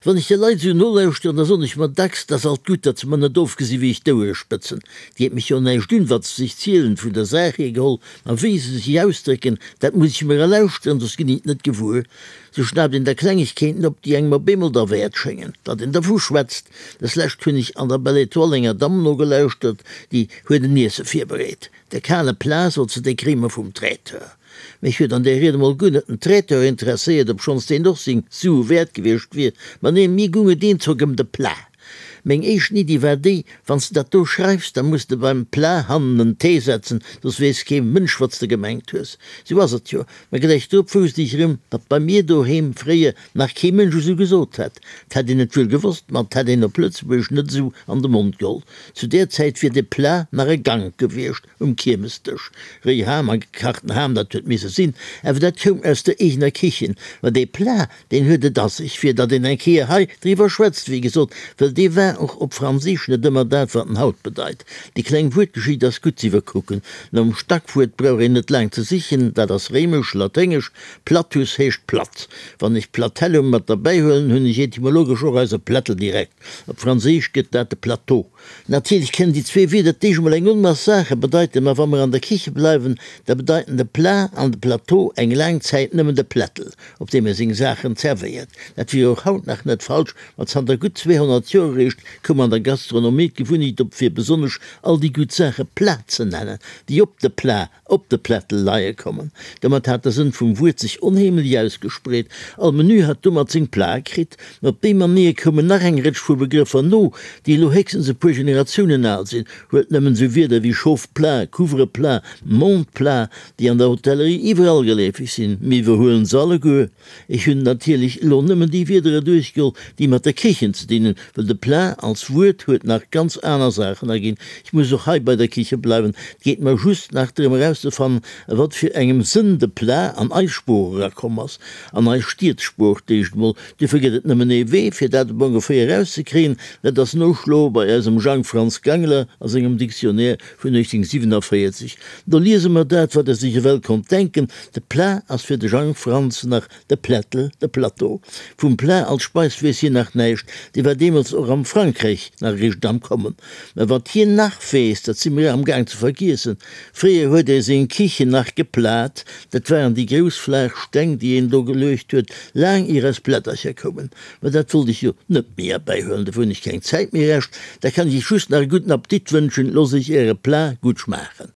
Wann ech de Leit esou nolauschteren, da soen ech mer dacks, 't ass alt gutt, datt se mer net ofgesi wéi ech d'Ouere spëtzen. 't geet mech jo näischt un, wat se sech zielen, vun der Saach hier geholl, ma wéi se sech ausdrécken, dat muss ech mer erlauschteren, soss ginn ech et net gewuer. Sou schnaapt een da Klengegkeeten op, déi engem op eemol derwäert schéngen, datt een dervu schwätzt. Deslescht hunn ech an der Belle Etoile enger Damm nogelauschtert, déi huet en Iesse virbereet. De kale Plat, sot se, dee kréie mer vum Traiteur. Mech huet an där Ried emol guer net den Traiteur interesséiert, obschonns deen och seng Sue wäert gewiescht wier, ma neen, mir gung et eenzock ëm de Plat. Meng éischten Iddi war déi, Wann s de dat do schreifs, da muss de beim Plat hannen en T setzen, soss weess kee Mënsch, wat s de gemengt hues. Sou ass et jo. Mä gläich drop wousst ech erëm, datt bei mir doheem fréier nach kee Mënsch esou gesot hätt. 't hätt een et wuel gewosst, ma 't hätt een op Lëtzebuergesch net esou an de Mond geholl. Zu där Zäit wier de Plat nach e Gank gewiescht. Um Kiermesdësch. Réi Ham a gekachten Ham, dat huet misse sinn, awer dat koum aus der eegener Kichen. Ma dee Plat, deen huet et a sech, fir datt een eng Kéier hei driwwer schwätzt, wéi gesot, wëll dee war och op Franséisch net ëmmer dat, wat en haut bedeit. Déi kleng Wuertgeschicht ass gutt z'iwwerkucken. Nom Stackwuert brauch een net laang ze sichen, dat ass réimesch, laténgesch, platus heescht platt. Wann ech platellum mat derbäihuelen, hunn ech etymologesch och eise Plättel direkt. Op Franséisch gëtt dat de Plateau. Natierlech kënnen déi zwee Wierder d'éischt emol eng Onmass Saache bedeiten, ma wa mer an der Kiche bleiwen, da bedeiten de Plat an de Plateau eng laang Zäit nëmmen de Plättel, op deem ee seng Saachen zerwéiert. Dat wier och haut nach net falsch, ma zanter gutt 200 Joer eréischt koum an der Gastronomie d'Gewunnecht op, fir besonnesch all déi gutt Saache Plat ze nennen, déi op de Plat op de Plättel leie kommen. Domat hat de Sënn vum Wuert sech onheemlech ausgespreet. All Menü hat domat seng Plate kritt. Mä op déi Manéier koumen nach eng Rëtsch vu Begrëffer no, déi elo héchstens e puer Generatiounen al sinn. Huelt nëmmen esou Wierder wéi Chauffe-plat, Couvre-plat, Monte-plat, déi an der Hotellerie iwwerall geleefeg sinn. Mir iwwerhuelen se alleguer. Ech hunn natierlech elo nëmmen déi Wiedere duerchgeholl, déi mat der Kichen ze dinn hunn, well de Plat als Wuert huet nach ganz aner Saachen erginn. Ech muss och hei bei der Kiche bleiwen. Et geet mer just nach drëm erauszefannen, a wat fir engem Sënn de Plat an eis Sprooch erakomm ass, an eis Stiedssprooch d'éischt emol. Duerfir gëtt et nëmmen ee Wee, fir dat op ongeféier erauszekréien, dat ass noschloe bei eisem Jang Franz Gangler a sengem Dictionnaire vun 1847. Do liese mer dat, wat e sech ewell konnt denken, De Plat ass fir de Jang Franz nach de Plättel, de Plateau. Vum Plat als Speis weess hien nach näischt, dee war deemools och am Frankräich nach eréischt am Kommen. Mä wat hien nach weess, dat si mir amgaang ze vergiessen, Fréier huet ee seng Kichen nach geplat, dat waren déi grouss flaach Steng, déi een do geluecht huet, laang ier eis Plättercher koumen. Mä dat wollt ech jo net méi erbäihuelen, dofir hunn ech keng Zäit méi. Rescht, da kann ech iech just nach e gudden Appetit wënschen, loosst iech äre Plat gutt schmaachen.